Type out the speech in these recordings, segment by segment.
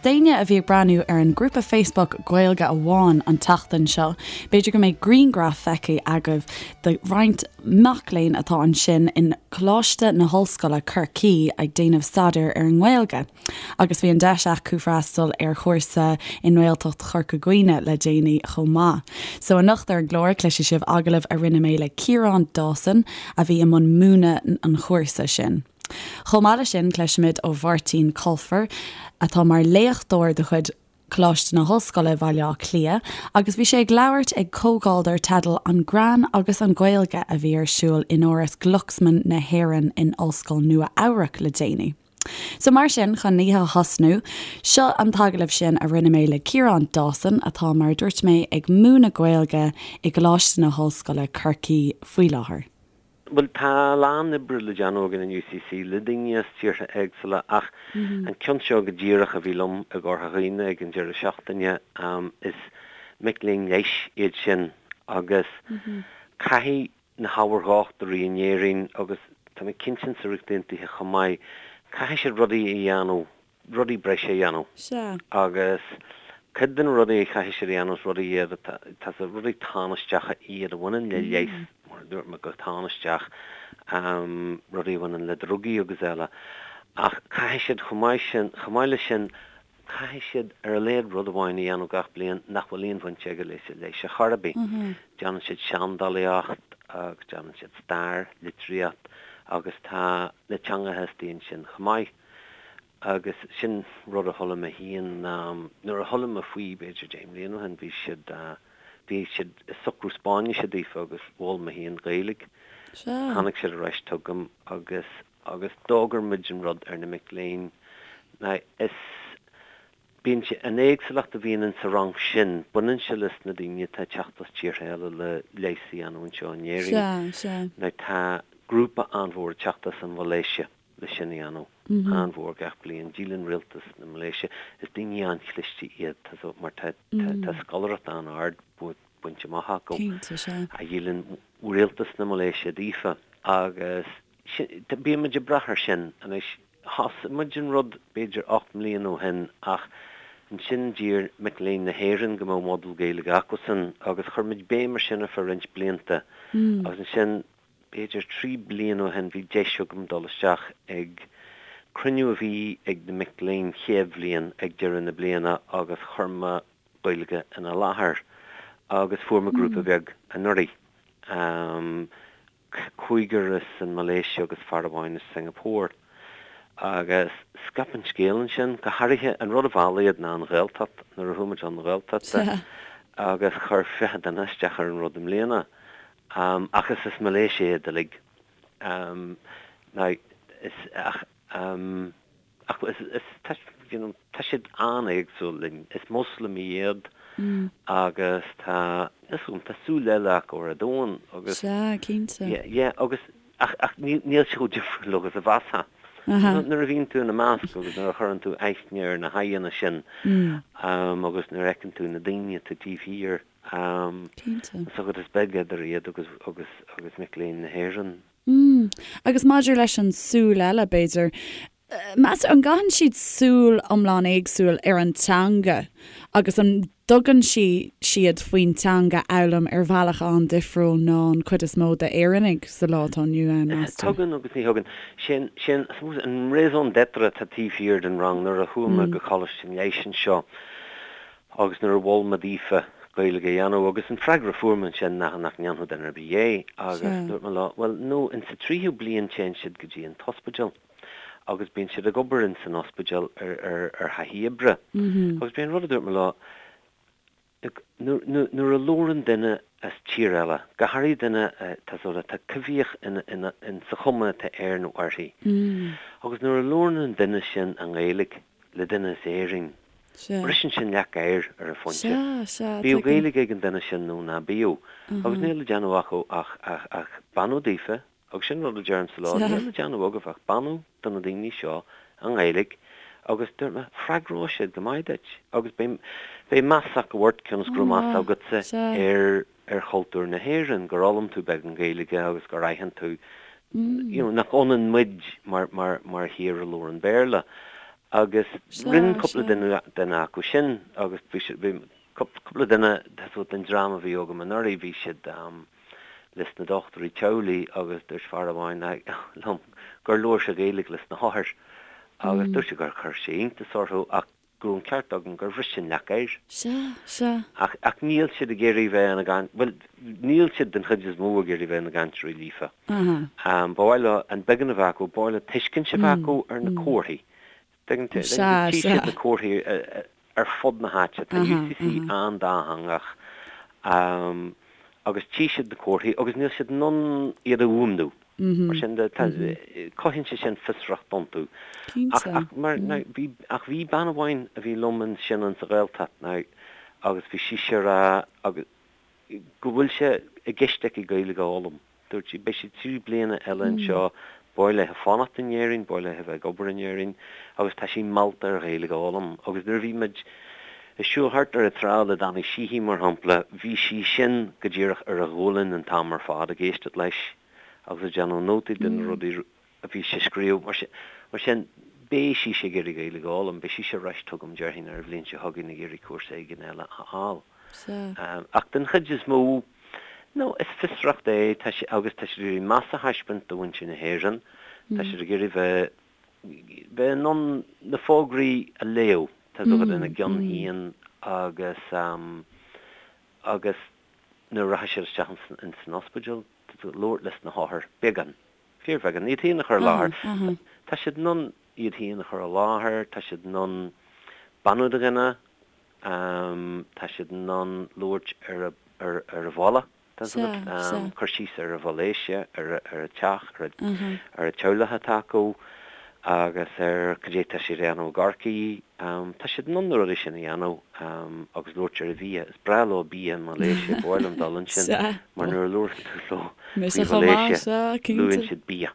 D'éinne a bhí ag breathnú ar an grúpa Facebook Gaeilge Amháin an tseachtain seo, b'fhéidir go mbeidh grianghraf feicthe agaibh de roinnt mac léinn atá ansin in Coláiste na hOllscoile, Corcaigh ag déanamh staidéir ar an nGaeilge. Agus bhí an deis acu freastal ar chúrsa i nGaeltacht Chorca Dhuibhne le déanaí chomh maith. So anocht ar an gclár cloisfidh sibh agallamh a rinne mé le Ciarán Dawson a bhí i mbun múineadh an chúrsa sin. Chomh maith leis sin cloisfimid ó Mháirtín Colfer atá mar léachtóir de chuid Coláiste na hOllscoile Bhaile Átha Cliath agus bhí sé ag labhairt ag comhdháil dar teideal 'An Greann agus an Ghaeilge' a bhí ar siúl in Áras Glucksman na hÉireann in Ollscoil Nua Eabhrac le déanaí. So mar sin, chun an oíche a thosnú, seo an t-agallamh sin a rinne mé le Ciarán Dawson, atá, mar a dúirt mé, ag múineadh Gaeilge i gColáiste na hOllscoile, Corcaigh, faoi láthair. Bhuel, tá a lán oibre le déanamh againn in UCC le daoine as tíortha éagsúla ach an ceann seo go díreach a bhí liom i gCorca Dhuibhne ag an deireadh seachtaine, is mic léinn leighis iad sin agus caithfidh na hábhair dhochtúirí in Éirinn agus tá mé cinnte sa Ríocht Aontaithe chomh maith, caithfidh siad rudaí a dhéanamh, rudaí breise a dhéanamh. Sea. Agus cuid de na rudaí a chaithfidh siad a dhéanamh is rudaí iad atá, tá sé, rudaí tánaisteacha iad a bhaineann le leigheas, mar a dúirt mé, go tánaisteach, rudaí a bhaineann le drugaí agus eile. Ach caithfidh siad chomh maith sin, chomh maith leis sin, Caithfidh siad ar a laghad rud amháin a dhéanamh gach bliain nach bhfuil aon bhaint aige leis an leigheas ar chor ar bith. Déanann siad seandálaíocht agus déanann siad stair, litríocht agus tá na teangacha istigh ansin chomh maith. Agus sin rud a chuala mé féin, nuair a chuala mé faoi b'fhéidir 10 mbliana ó shin, bhí siad, bhí siad ag socrú Spáinnise daofa agus mhol mé féin Gaeilge. Tháinig siad ar ais chugam agus. agus d'fhógair muid an rud ar na mic léinn. Now, is, bíonn sé, an éagsúlacht a bhíonn in sa rang sin, baineann sé leis na daoine atá ag teacht as tíortha eile le leigheas a dhéanamh anseo in Éirinn. Sea, sea. Now, tá grúpa an-mhór ag teacht as an Mhalaeisia le sin a dhéanamh, an-mhór gach bliain. Díolann rialtas na Malaeisia, is daoine an-chliste iad, tá so, mar tá, tá, tá scoláireacht an-ard bainte amach acu, Cinnte, sea. a dhíolann rialtas na Malaeisia daofa agus, Bíonn muid ag brath air sin anois. Thosaigh muid an rud b'fhéidir 8 mbliana ó shin ach ansin d'iarr mic léinn na hÉireann go mbeadh modúl Gaeilge acusan agus chuir muid béim ar sin ar feadh roinnt blianta agus ansin b'fhéidir 3 bliana ó shin bhí deis agam dul isteach ag cruinniú a bhí ag na mic léinn chéad bhliain ag deireadh na bliana agus chuir mé Gaeilge ina láthair agus fuair mé grúpa beag anuraidh. cúigear as an Malaeisia agus fear amháin as Singapore. Agus scaip an scéal ansin, go háirithe, an rud a mheall iad ná an Ghaeltacht, nuair a chuaigh muid chun na Gaeltachta agus chuir 20 duine isteach ar an rud i mbliana. Ach is as Malaeisia iad uilig. Now, is, ach, Ach is, is, tá, you know, tá siad an-éagsúil linn. Is Moslamaigh iad agus tá, níl 's agam, tá súil eile acu ar an domhan agus. Sea, cinnte. Yeah, yeah, agus, ach, ach níl, níl sé chomh difriúil agus a mheasfá. Nuair a bhíonn tú ina measc agus nuair a chuireann tú aithne ar na haghaidheanna sin agus nuair a fheiceann tú na daoine atá taobh thiar, Cinnte. is agat is beag idir iad agus, agus, agus mic léinn na hÉireann. Mm. Agus maidir leis an súil eile, b'fhéidir, meas tú, an gcaitheann siad súil iomlán éagsúil ar an teanga agus an dtugann sí, siad faoin teanga a fhoghlaim ar bhealach an-difriúil ná an cuid is mó d'Éireannaigh sa lá atá inniu ann, meas tú? Tugann agus ní thugann. Sin, sin, I suppose, an raison d'être atá taobh thiar den rang nuair a chuaigh mé go Coláiste an Leighis anseo. Agus nuair a mhol mé daofa Gaeilge a dhéanamh, agus an freagra a fuair mé ansin ná nach ndéanfadh duine ar bith é, agus dúirt mé leo, bhuel, no, in sa tríú bliain téann siad go dtí an t-ospidéal agus bíonn siad ag obair in san ospidéal ar, ar, ar thaithí oibre. Agus b'é an rud a dúirt mé leo, look, nuair, nuair, nuair a labhrann duine as tír eile, go háirithe duine atá sort of, atá coimhthíoch ina, ina, in sa chuma atá air nó uirthi, agus nuair a labhrann an duine sin i nGaeilge le duine as Éirinn, Briseann sin leac oighir ar an phointe. Bíodh Gaeilge ag an duine sin nó ná bíodh. Agus níl le déanamh acu ach, ach, ach beannú daofa, agus sin rud a deirimse leo, níl le déanamh agaibh ach beannú do na daoine seo i nGaeilge agus dúirt mé, freagróidh siad go maith duit agus beidh, beidh meas acu ort cionn is go raibh meas agatsa ar, ar chultúr na hÉireann, gur fhoghlaim tú beagán Gaeilge agus gur aithin tú, you know, nach ionann muid mar, mar, mar thír a labhrann Béarla. Agus rinne cúpla duine acu sin agus bhí siad, bhí cúpla duine den dream a bhí agam anuraidh, bhí siad leis na dochtúirí teaghlaigh agus dúirt fear amháin liom gur labhair sé Gaeilge leis na hothair agus dúirt sé gur chuir sé iontas orthu ach go raibh an ceart agam gur bhris sin leac oighir. Sea, sea. Ach, ach níl siad ag iarraidh bheith ina gcaint, bhuel, níl siad den chuid is mó ag iarraidh bheith ina gcainteoirí líofa. Aha. Ba mhaith leo an beagán a bheith acu, ba mhaith leo tuiscint a bheith acu ar na comharthaí. Tuigeann tú, Sea, tchí sea. siad na comharthaí ar fud na háite. Tá Aha, UCC aha. an-dátheangach agus tchí siad na comharthaí agus níl siad in ann iad a fhuaimniú. Mar sin de, cothaíonn sé sin fiosracht iontu. Ach, ach, mar, now, bhí, ach bhí bean amháin a bhí liom ansin insa Ghaeltacht now agus bhí sise ag rá agus, go bhfuil sé i gceist aici Gaeilge a fhoghlaim. Dúirt sí, beidh sí 3 bliana eile anseo, ba mhaith léi fanacht in Éirinn, ba mhaith léi bheith ag obair in Éirinn agus tá sí meallta ar Ghaeilge a fhoghlaim. Agus nuair a bhí muid ag siúl thart ar an trá le Danny Sheehy, mar shampla, bhí sí sin go díreach ar a ghualainn an t-am ar fad ag éisteacht leis. agus ag déanamh nótaí de na rudaí a bhí sé ag scríobh. Mar sin, beidh sise ag iarraidh Gaeilge a fhoghlaim, beidh sise ar ais chugam, déarfainn, ar an bhliain seo chugainn ag iarraidh cúrsa éigin eile a fháil. Ach den chuid is mó, no, is fiosracht é, tá sé, agus tá siad ag iarraidh meas a thaispeáint do mhuintir na hÉireann, tá siad ag iarraidh bheith, bheith in ann na fógraí a léamh, tá a fhios agat, ina gceann féin agus, agus nuair a rachaidh siad isteach ins an ospidéal, labhairt leis na hothair, beagán, fíorbheagán, iad féin a chur i láthair. Tá siad in ann iad féin a chur i láthair, tá siad in ann beannú do dhuine, tá siad in ann labhairt ar ar a bhaile, tá a fhios agat, cur síos ar an Mhalaeisia, ar a teach, ar an teaghlach atá acu agus ar cad é tá siad a dhéanamh i gCorcaigh. Tá siad in ann na rudaí sin a dhéanamh agus labhairt ar an bhia. Is breá leo bia i Malaeisia, ba mhaith liom dul ansin mar nuair a labhrann tú leo faoi Mhalaeisia, luann siad bia.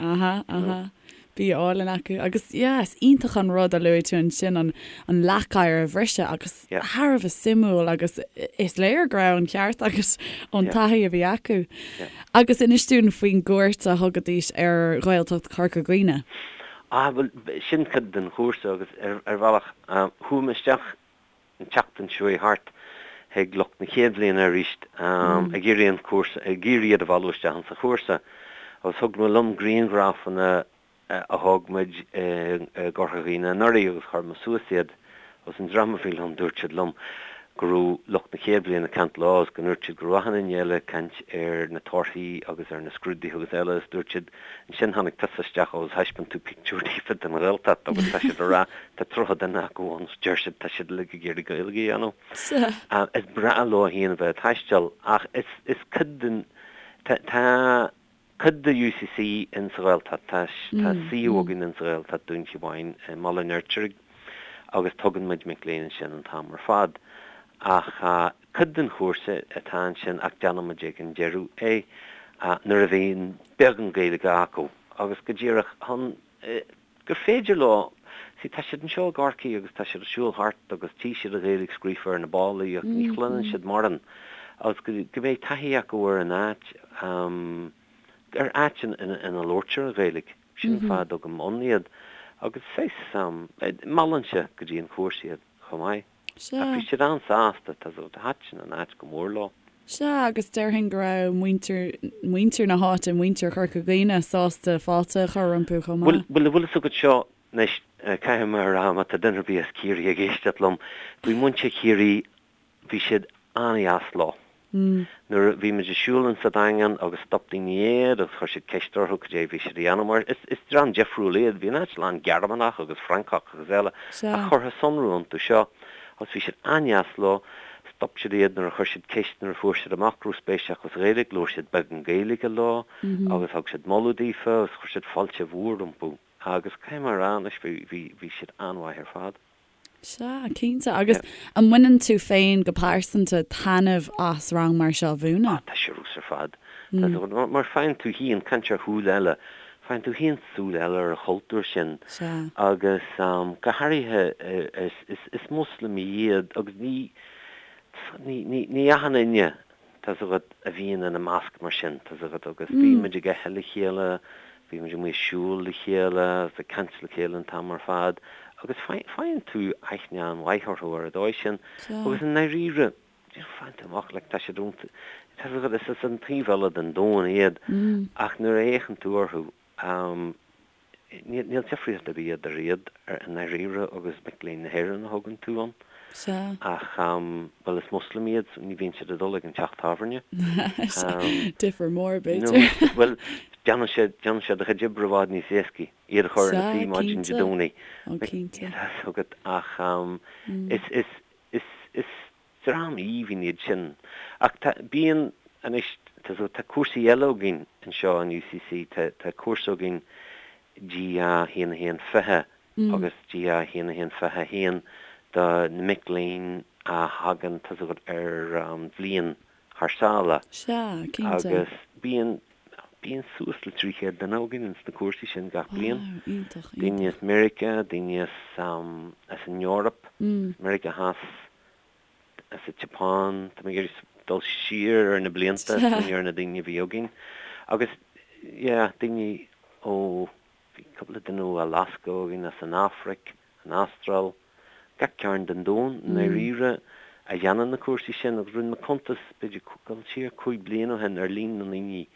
Aha, aha. Bia álainn acu. Agus yeah, is iontach an rud a luaigh tú ansin, an an leac oighir a bhriseadh agus thar a bheith suimiúil agus is léir go raibh an ceart agat ón taithí a bhí acu. Agus inis dúinn faoin gcuairt a thugaidís ar Ghaeltacht Chorca Dhuibhne. Ah, bhuel, sin cuid den chúrsa agus ar bhealach, chuaigh mé isteach an tseachtain seo chuaigh thart chuig lucht na chéad bhliana arís ag iarraidh an cúrsa, ag iarraidh iad a mhealladh isteach insa chúrsa agus thug mé liom grianghrafanna a thóg muid i gCorca Dhuibhne anuraidh agus chuir mé suas iad agus an dream a bhí liom dúirt siad liom go raibh lucht na chéad bhliana ag caint leo agus go ndúirt siad go raibh achan duine eile ag caint ar na torthaí agus ar na scrúduithe agus eile agus dúirt siad ansin tháinig tusa isteach agus thaispeáin tú pictiúr daofa den Ghaeltacht agus tá siad ag rá tá 30 duine acu ann agus deir siad tá siad uilig ag iarraidh Gaeilge a dhéanamh. Is breá leo féin a bheith ag taisteal ach is is cuid den tá tá cuid de UCC in sa Ghaeltacht. Tá tá suíomh againn in sa Ghaeltacht, Dún Chíomháin i mBaile an Fheirtéaraigh agus tugann muid mic léinn ansin an t-am ar fad. Ach cuid den chúrsa atá ansin ach déanann muid ag an deireadh é nuair a bhíonn beagán Gaeilge acu agus go díreach chun gur féidir leo, see tá siad anseo i gCorcaigh agus tá siad ag siúl thart agus tchí siad an Ghaeilge scríofa ar na ballaí ach ní chluineann siad mórán agus go go mbeidh taithí acu ar an áit, ar áit ina labhraítear an Ghaeilge. Sin an fáth a dtugaim ann iad agus saghas, meallann sé go dtí an chúrsa iad chomh maith. Sea. Ach bhí siad an-sásta, tá thaitin an áit go mór leo. Sea, agus déarfainn go raibh muintir, muintir na háite, muintir Chorca Dhuibhne sásta fáilte a chur rompu chomh maith. Bhuel, bhfuil fhios agat seo anois, caithfidh mé a rá, má tá duine ar bith as Ciarraí ag éisteacht liom, bhí muintir Chiarraí, bhí siad an-dheas leo. Nuair a bhí muid ag siúl insa Daingean agus stop daoine iad agus chuir siad ceist orthu cad é a bhí siad a dhéanamh mar is is dream difriúil iad, bhí an áit lán Gearmánach agus Francach agus eile ach chuirfeá sonrú iontu seo agus bhí siad an-dheas leo, stop siad iad nuair a chuir siad ceist nuair a fuair siad amach go raibh spéis acu sa Ghaeilge, labhair siad beagán Gaeilge leo agus thug siad moladh daofa agus chuir siad fáilte mhór rompu agus caithfidh mé a rá anois bhí bhí bhí siad an-mhaith ar fad. Sea, cinnte. Agus an mbaineann tú féin go pearsanta taitneamh as rang mar seo a mhúineadh? Ah, tá sé ar fheabhas ar fad. Tá sé, mar faigheann tú féin, caint ar shúil eile, faigheann tú féin súil eile ar an chultúr sin. Sea. Agus go háirithe is, is Moslamaigh iad agus ní, ní, ní, ní achan duine, tá 's agat, a bhíonn ina measc mar sin, tá 's agat, agus bhí muid ag ithe le chéile, Bhí muid amuigh ag siúl le chéile agus ag caint le chéile an t-am ar fad agus faigheann tú aithne an-mhaith orthu ar an dóigh sin agus i ndáiríre, faigheann tú amach, like, tá siad ón, tá siad, is as an taobh eile den domhan iad ach nuair a fhéachann tú orthu, Níl difríocht ar bith idir iad i ndáiríre agus mic léinn na hÉireann a thugann tú ann. Sea. Ach, bhuel, is Muslim iad so ní bhíonn siad ag dul ag an teach tábhairne. Difear mór, b'fhéidir. Bhuel, déanann sé, déanann sé do chuid oibre i bhfad níos éascaí, iad a chur ina suí maidin Dé Domhnaigh. Ó, cinnte. Tá a fhios agat, ach is, is, is, is Dream aoibhinn iad sin. Ach tá, bíonn, anois, tá, tá cúrsaí eile againn anseo in UCC, tá, tá cúrsa againn GA 1 1 20 agus GA 1 1 21 do na mic léinn a thagann, tá a fhios agat, ar bhliain thar sáile. Sea, cinnte. Agus bíonn, bíonn suas le 300 duine againn ins na cúrsaí sin gach bliain. Wow, iontach, iontach. Daoine as Meiriceá, daoine as, as an Eoraip, as Meiriceá Theas, as an tSeapáin, tá mé ag iarraidh dul siar ar na blianta, smaoineamh ar na daoine a bhí againn. Agus, yeah, daoine ó, bhí cúpla duine ó Alaska againn, as an Afraic, an Astráil, gach cearn den domhan, i ndáiríre, a dhéanann na cúrsaí sin. Agus rinne mé cuntas, b'fhéidir, dul siar 5 bliana ó shin ar líon na ndaoine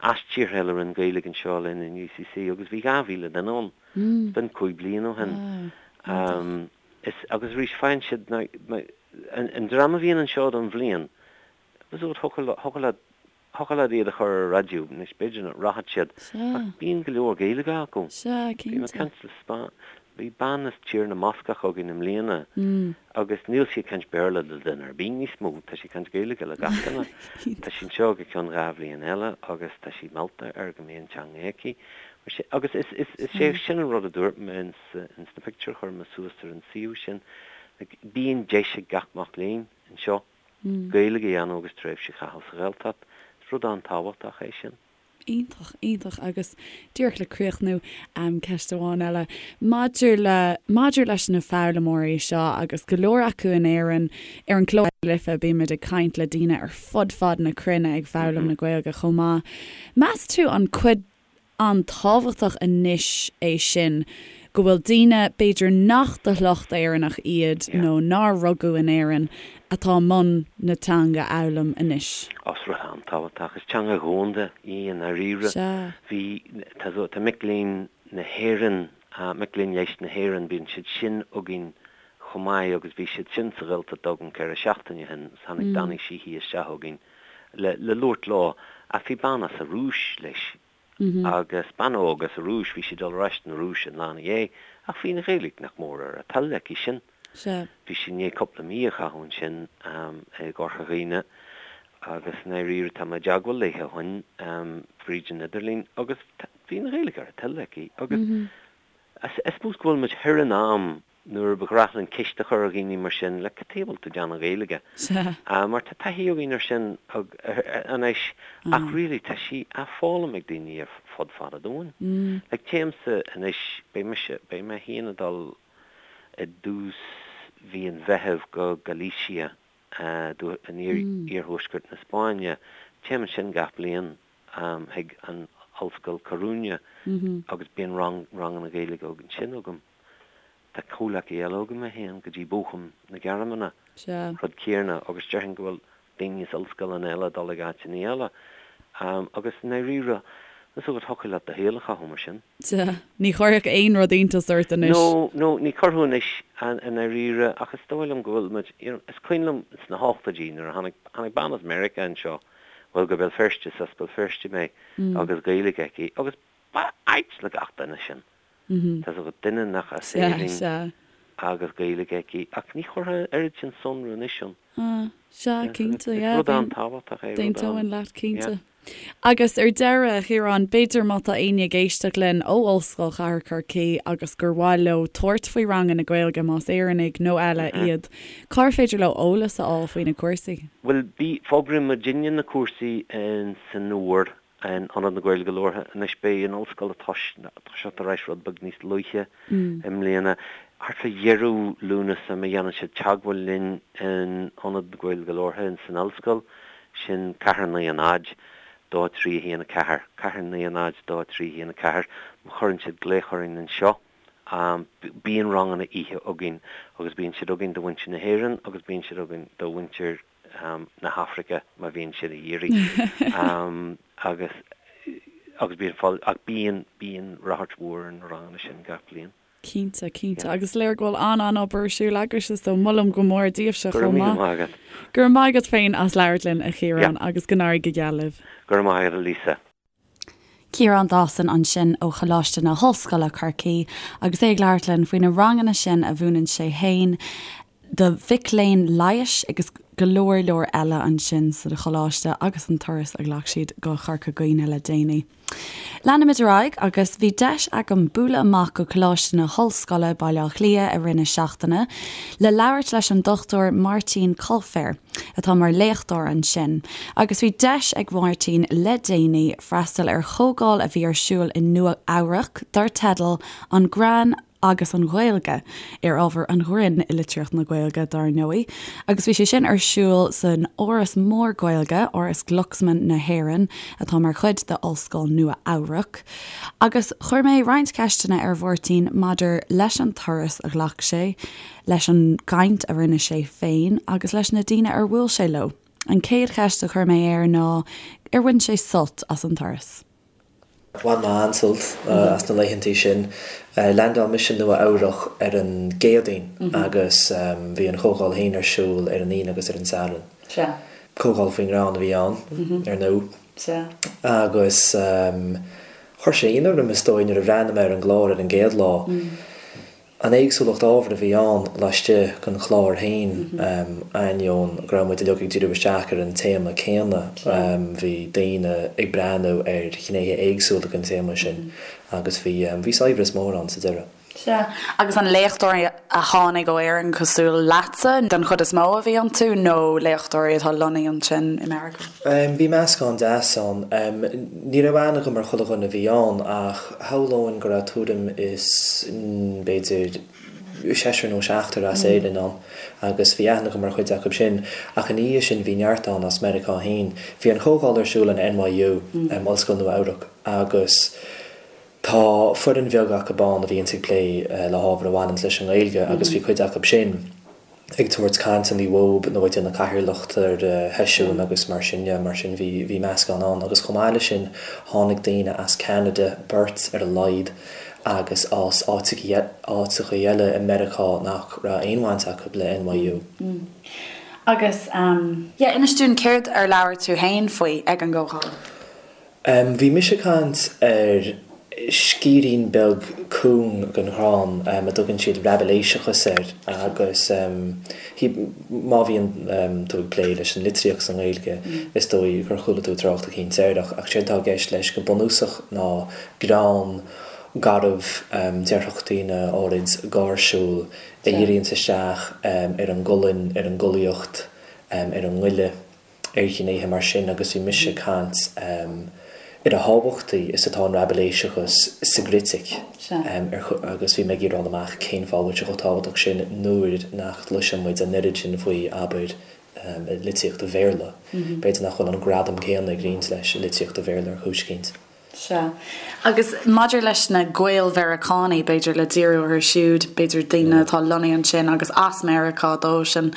as tíortha eile a rinne Gaeilge anseo linn in UCC agus bhí 2,000 duine ann. B'in 5 bliana ó shin. Wow, iontach. Is, agus arís, faigheann siad na, an dream a bhíonn anseo don bhliain, thiocfadh, thiocfadh leat, thiocfadh leat iad a chur ar raidió, anois b'fhéidir nach rachadh siad, ach bíonn go leor Gaeilge acu. Sea, Bhí mé ag cinnte. caint le Spá, bhí bean as Tír na mBascach againn i mbliana agus níl sí ag caint Béarla le duine ar bith níos mó, tá sí ag caint Gaeilge le gach duine. Tá sí anseo go ceann 2 bhliain eile agus tá sí meallta ar go mbeidh an teanga aici. Mar sin, agus is, is, is é sin an rud a dúirt mé ins, ins na pictiúir a chuir mé suas ar an suíomh sin, like, bíonn deis ag gach mac léinn anseo Gaeilge a dhéanamh agus tréimhse a chaitheamh sa Ghaeltacht. Is rud an-tábhachtach é sin. Iontach, iontach. Agus díreach le críochnú, ceist amháin eile. Maidir le, maidir leis na foghlaimeoirí seo agus go leor acu in Éirinn, ar an gclár Life bímid ag caint le daoine ar fud fad na cruinne ag foghlaim na Gaeilge chomh maith. Meas tú an cuid an-tábhachtach anois é sin go bhfuil daoine, b'fhéidir nach de shliocht Éireannach iad nó nár rugadh in Éirinn, atá i mbun na teanga a fhoghlaim anois. Ó, is rud an-tábhachtach. Is teanga dhomhanda í i ndáiríre. Sea. Bhí, tá, tá mic léinn na hÉireann, mic léinn leighis na hÉireann, bíonn siad sin againn chomh maith agus bhí siad sin sa Ghaeltacht agam 4 seachtaine ó shin agus tháinig Danny Sheehy isteach chugainn le le labhairt leo ach bhí bean as an Rúis leis agus bean óg as an Rúis, bhí sí ag dul ar ais na Rúise an lá ina dhiaidh ach bhí an Ghaeilge nach mór ar a toil aici sin. Sea. Bhí sí i ndiaidh cúpla mí a chaitheamh ansin i gCorca Dhuibhne agus i ndáiríre tá mé i dteagmháil léi ó shin fríd an idirlíon agus bhí an Ghaeilge ar a toil aici agus I suppose go bhfuil muid thoir in am nuair ba ghnách linn ceist a chur ar dhaoine mar sin, like, cad chuige a bhfuil tú ag déanamh Gaeilge? Sea. Mar tá taithí againn ar sin anois ach really tá sí á foghlaim ag daoine ar fud fad an domhain. Like téimse anois, beidh mise, beidh mé féin ag dul i dtús mhí an Mheithimh go Galicia in iarthuaisceart na Spáinne. Téim ansin gach bliain. chuig an Ollscoil Coruña agus bíonn rang, ranganna Gaeilge ansin agam. Tá comhleacaí eile agam a théann go dtí Bochum na Gearmáine, Sea. rud céanna agus déarfainn go bhfuil daoine as ollscoileanna eile ag dul ag áiteanna eile. Agus i ndáiríre, is dócha thiocfadh leat do shaol a chaitheamh mar sin. Sea. Ní chuirfeadh aon rud iontas ort anois. No, no, ní chuirfeadh anois i ndáiríre ach is dóigh liom go bhfuil muid, you know, is cuimhin liom sna hochtóidí nuair a tháinig, tháinig bean as Meiriceá anseo, bhuel go Béal Feirste, is as Béal Feirste mé, agus Gaeilge aici agus ba ait le gach duine sin. Tá 's agat, duine nach as Éirinn agus Gaeilge aici ach ní chuirfeá an oiread sin sonrú anois ann. Sea, cinnte, yeah. Is rud an-tábhachtach é, rud an. D'aontóinn leat, cinnte. Agus ar deireadh, a Chiaráin, b'fhéidir má tá éinne ag éisteacht linn ó Ollscoil Chathair Chorcaí agus gur mhaith leo tabhairt faoi ranganna Gaeilge, más Éireannaigh nó eile iad, cár féidir leo eolas a fháil faoi na cúrsaí? Bhuel, bí, fógraíonn muidinne na cúrsaí in san fhómhar in Ionad na Gaeilge Labhartha. Anois beidh an ollscoil ag toiseacht ar ais rud beag níos luaithe i mbliana. Thart fá dheireadh Lúnasa má dhéanann siad teagmháil linn in Ionad na Gaeilge Labhartha in san ollscoil, sin ceathair 9 0. 2 3 1 4, 4 9 0 2 3 1 4, má chuireann siad glaoch orainn anseo, bíonn ranganna oíche againn agus bíonn siad againn do mhuintir na hÉireann agus bíonn siad againn do mhuintir na hAfraice má bhíonn siad ag iarraidh agus agus bíonn fáil ach bíonn bíonn ráchairt mhór ar na ranganna sin gach bliain. Cinnte, cinnte. Agus is léir go bhfuil an-an-obair ar siúl agaibhse so molaim go mór daoibhse Go raibh chomh míle maith. maith agat. Go raibh maith agat féin as labhairt linn, a Chiaráin, agus go n-éirí go geal libh. Go raibh maith agat, a Lisa. Ciarán Dawson ansin ó Choláiste na hOllscoile, Corcaigh, agus é ag labhairt linn faoi na ranganna sin a mhúineann sé féin do mhic léinn leighis agus go leor leor eile ansin sa choláiste agus an turas a ghlac siad go Corca Dhuibhne le déanaí. Leanfaimid ar aghaidh agus bhí deis agam bualadh amach go Coláiste na hOllscoile, Baile Átha Cliath i rith na seachtaine le labhairt leis an Dr Máirtín Coilféir atá mar léachtóir ansin agus bhí deis ag Máirtín le déanaí freastal ar chomhdháil a bhí ar siúl i Nua Eabhrac dar teideal 'An Greann agus an Ghaeilge, ar ábhar an ghrinn i litríocht na Gaeilge, dar ndóigh, agus bhí sé sin ar siúl san áras mór Gaeilge, Áras Glucksman na hÉireann, atá mar chuid de Ollscoil Nua Eabhrac. Agus chuir mé roinnt ceisteanna ar Mháirtín maidir leis an turas a ghlac sé, leis an gcaint a rinne sé féin agus leis na daoine ar bhuail sé leo. An chéad cheist a chuir mé air ná ar bhain sé sult as an turas. Bhain mé an-sult as na laethantaí sin. Leaindeáil mise i Nua Eabhrach ar an gCéadaoin agus bhí an chomhdháil féin ar siúl ar an Aoine agus ar an Satharn. Comhdháil faoin ngreann a bhí ann, ar ndóigh. Agus chuir sé ionadh orm, is dóigh, nuair a bhreathnaigh mé ar an gclár ar an gcéad lá. An éagsúlacht ábhar a bhí ann laistigh den chlár féin, ainneoin go raibh muid uilig ag díriú isteach ar an téama céanna, bhí daoine ag breathnú ar ghnéithe éagsúla den téama sin agus bhí bhí saibhreas mór ann sa deireadh. Sea. Agus an léachtóirí a tháinig ó Éirinn cosúil leatsa den chuid is mó a bhí iontu nó léachtóirí atá lonnaithe ansin i Meiriceá? Bhí meascán deas ann. Ní raibh aithne agam ar chuile dhuine a bhí ann ach shamhlóinn go raibh tuairim is b'fhéidir seisear nó seachtar as Éirinn ann agus bhí aithne agam ar chuid acu sin. Ach ina dhiaidh sin bhí neart ann as Meiriceá féin. Bhí an chomhdháil ar siúl in NYU, Ollscoil Nua Eabhrac, agus tá foireann bheag acu ann a bhíonns ag plé le hábhar a bhaineanns leis an nGaeilge agus bhí cuid acu sin ag tabhairt cainteanna uathub nó ag déanamh cathaoirleacht ar sheisiúin agus mar sin de, mar sin bhí, bhí meascán ann. Agus chomh maith leis sin tháinig daoine as Ceanada, beirt ar a laghad, agus as áiteacha, áiteacha eile i Meiriceá nach raibh aon bhaint acu le NYU. Agus, yeah, inis dúinn céard ar labhair tú fhéin faoi ag an gcomhdháil? Bhí mise ag caint ar sciarrín beag cúng den ghreann a dtugann siad raibiléiseachas air agus má bhíonn tú ag plé leis an litríocht sa nGaeilge is dóigh gur chuala tú trácht eicínt air ach séard atá i gceist leis go bunúsach ná greann garbh, déarfadh daoine áirid gáirsiúil, a dhíríonns isteach ar an gcolainn, ar an gcollaíocht, ar an ngoile. ar ghnéithe mar sin agus bhí mise ag caint ar a thábhachtaí is atá an raibiléiseachas sa gcritic agus bhí mé ag iarraidh fháil amach cén fáth a bhfuil sé chomh tábhachtach sin nuair nach gcloiseann muid an oiread sin faoi, abair, i litríocht an Bhéarla. B'fhéidir nach bhfuil an gradam céanna ag roinnt leis i litríocht an Bhéarla ar chúis eicínt. Sea. Agus maidir leis na Gael-Mheiriceánaigh, b'fhéidir le díriú orthu siúd, b'fhéidir daoine atá lonnaithe ansin agus as Meiriceá dóibhsean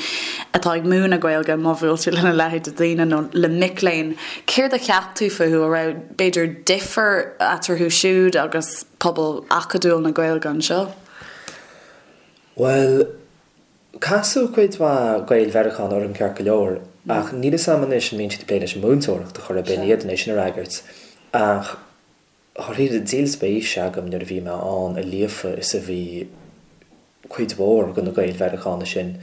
atá ag múineadh Gaeilge, má bhuail tú lena leithéid de dhaoine nó le mic léinn, céard a cheap tú fúthu? An raibh, b'fhéidir, difear eatarthu siúd agus pobal acadúil na Gaeilge anseo? Bhuel, Casadh cuid mhaith Gael-Mheiriceánach orm ceart go leor, ach níl 'fhios a'm anois an mbíonn siad ag plé leis an múinteoireacht ar chor ar bith, ní fhéadfainn é sin a fhreagairt. Ach dháiríre, díol spéise agam nuair a bhí mé ann a líofa is a bhí cuid mhór de na Gael-Mheiriceánaigh sin.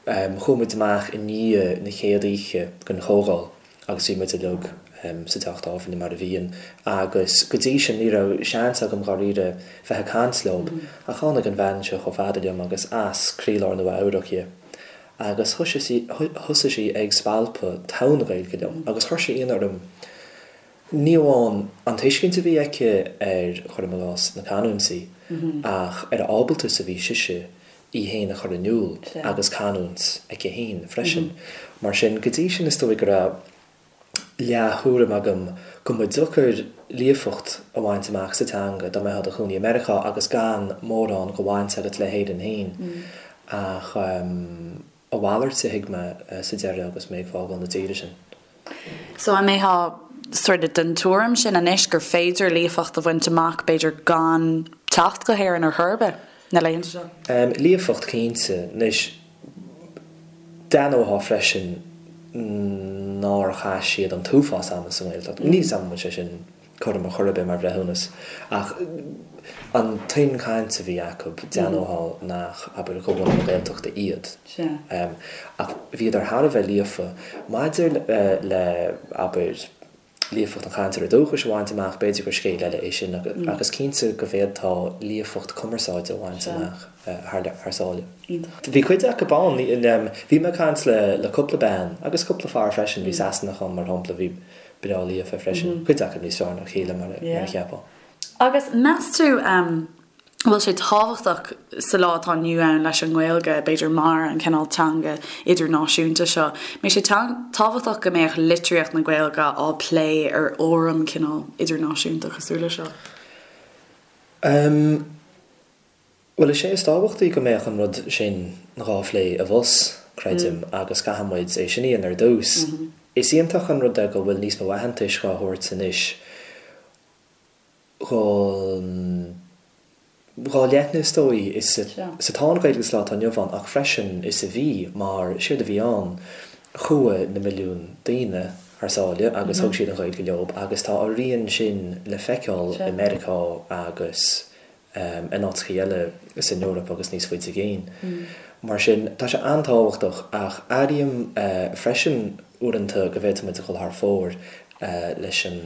Chuaigh muid amach i ndiaidh na chéad oíche den chomhdháil. agus bhí muid uilig sa teach tábhairne mar a bhíonn agus go dtí sin ní raibh seans agam dháiríre bheith ag caint leob ach tháinig an bhean seo chomh fada liom agus as croílár Nua Eabhrac dhi agus thosaigh sí ag spalpadh togha na Gaeilge liom agus chuir sé ionadh orm ní amháin an tuiscint a bhí aici ar, cuirim i gcás, na canúintí ach ar a ábalta is a bhí sise í féin a chur in iúl agus canúint aici féin freisin. Mar sin, go dtí sin is dóigh go raibh leath-thuairim agam go mba deacair líofacht a bhaint amach sa teanga dá mbeifeá i do chónaí i Meiriceá agus gan mórán de bhaint agat le hÉirinn féin. Ach a mhalairt a thuig mé sa deireadh agus mé ag fágáil na tíre sin. So an mbeifeá sort of den tuairim sin anois gur féidir líofacht a bhaint amach b'fhéidir gan teacht go hÉirinn ar chor ar bith na laethanta seo? Líofacht cinnte. Anois d'aithneofá freisin nár chaith siad an t-uafás ama sa nGaeltacht. Níl 'fhios a'm an bhfuil sé sin cothrom ar chor ar bith mar bhreithiúnas, ach an tuin cainte a bhí acu, d'aithneofá nach, abair, de bhunadh na Gaeltachta iad. Ach bhíodar thar a bheith líofa. Maidir le, abair, líofacht an chainteora dúchais a bhaint amach, b'fhéidir gur scéal eile é sin ach is cinnte go bhféadfá líofacht cumarsáide a bhaint amach thar sáile. Bhí cuid acu ann, bhí mé ag caint le cúpla bean agus cúpla fear freisin, bhí Sasanach ann mar shampla, a bhí breá líofa freisin, cuid acu níos fearr ná a chéile mar a cheapfá. Agus meas tú an bhfuil sé tábhachtach sa lá atá inniu ann leis an nGaeilge, b'fhéidir mar an cineál teanga idirnáisiúnta seo, mbeidh sé tábhachtach go mbeadh litríocht na Gaeilge á plé ar fhóram cineál idirnáisiúnta cosúil le seo? Em, bhuel is é is tábhachtaí go mbeadh an rud sin dhá phlé abhus, creidim, agus caithfidh muid é sin a dhéanamh ar dtús. Is iontach an rud é go bhfuil níos mó aitheantais dhá thabhairt anois dhon dhá leithne is dóigh is atá an Ghaeilge sa lá atá inniu ann ach freisin is a bhí mar séard a bhí ann chuaigh na milliúin daoine thar sáile agus thug siad an Ghaeilge leob agus tá a rian sin le feiceáil i Meiriceá agus in áiteachaí eile san Eoraip agus níos faide i gcéin. Mar sin tá sé an-tábhachtach ach airím freisin uaireanta go bhféadfaidh muid a dhul thar fóir leis an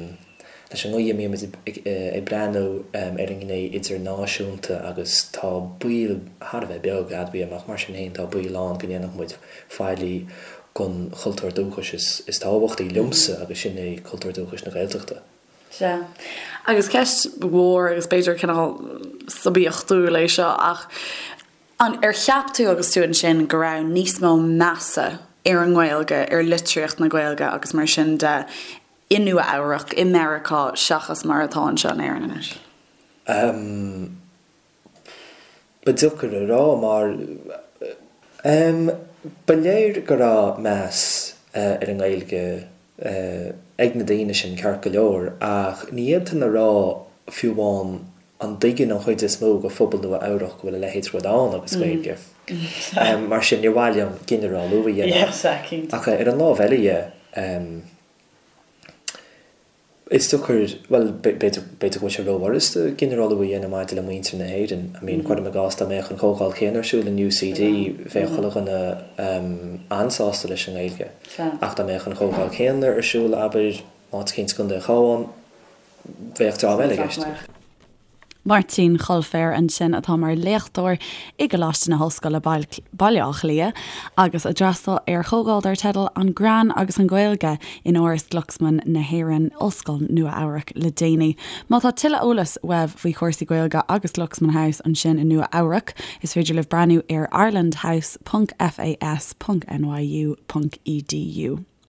leis an gcaoi a mbímid ag breathnú ar an ngné idirnáisiúnta agus tá baol thar a bheith beag, admhaím, ach mar sin féin tá baol ann go ndéanfadh muid faillí don chultúr dúchais is tábhachtaí liomsa agus sin é cultúr dúchais na Gaeltachta. Sea. Agus ceist mhór agus b'fhéidir cineál suibiachtúil é seo ach an ar cheap tú agus tú ansin go raibh níos mó measa ar an nGaeilge, ar litríocht na Gaeilge agus mar sin de i Nua Eabhrac, i Meiriceá seachas mar atá anseo in Éirinn anois? Ehm, ba deacair a rá mar, ehm, ba léir go raibh meas ar an nGaeilge ag na daoine sin ceart go leor ach ní fhéadfainn a rá fiú amháin an dtuigeann an chuid is mó de phobal Nua Eabhrac go bhfuil a leithéid rud ann agus Gaeilge. Mar sin níor mhaith liom ginearálú a dhéanamh. Ach ar an lámh eile dhe, Is deacair, bhuel, b'fhéidir, b'fhéidir go bhfuil sé rófhurasta ginearálú a dhéanamh maidir le muintir na hÉireann. I mean, cuirim i gcás dá mbeadh an chomhdháil chéanna ar siúl in UCD, bheadh chuile dhuine an-sásta leis an nGaeilge. Ach dá mbeadh an chomhdháil chéanna ar siúl, abair, áit eicínt i gContae an Chabháin, bheadh dream eile i gceist. Máirtín Choilféir ansin atá mar léachtóir i gColáiste na hOllscoile Baile Átha Cliath agus a d'fhreastail ar chomhdháil dar teideal 'An Greann agus an Ghaeilge' in Áras Glucksman na hÉireann, Ollscoil Nua Eabhrac le déanaí. Má tá tuilleadh eolais uaibh faoi chúrsaí Gaeilge agus Glucksman House ansin i Nua Eabhrac, is féidir libh breathnú ar irelandhouse ponc fas ponc nyu ponc edu.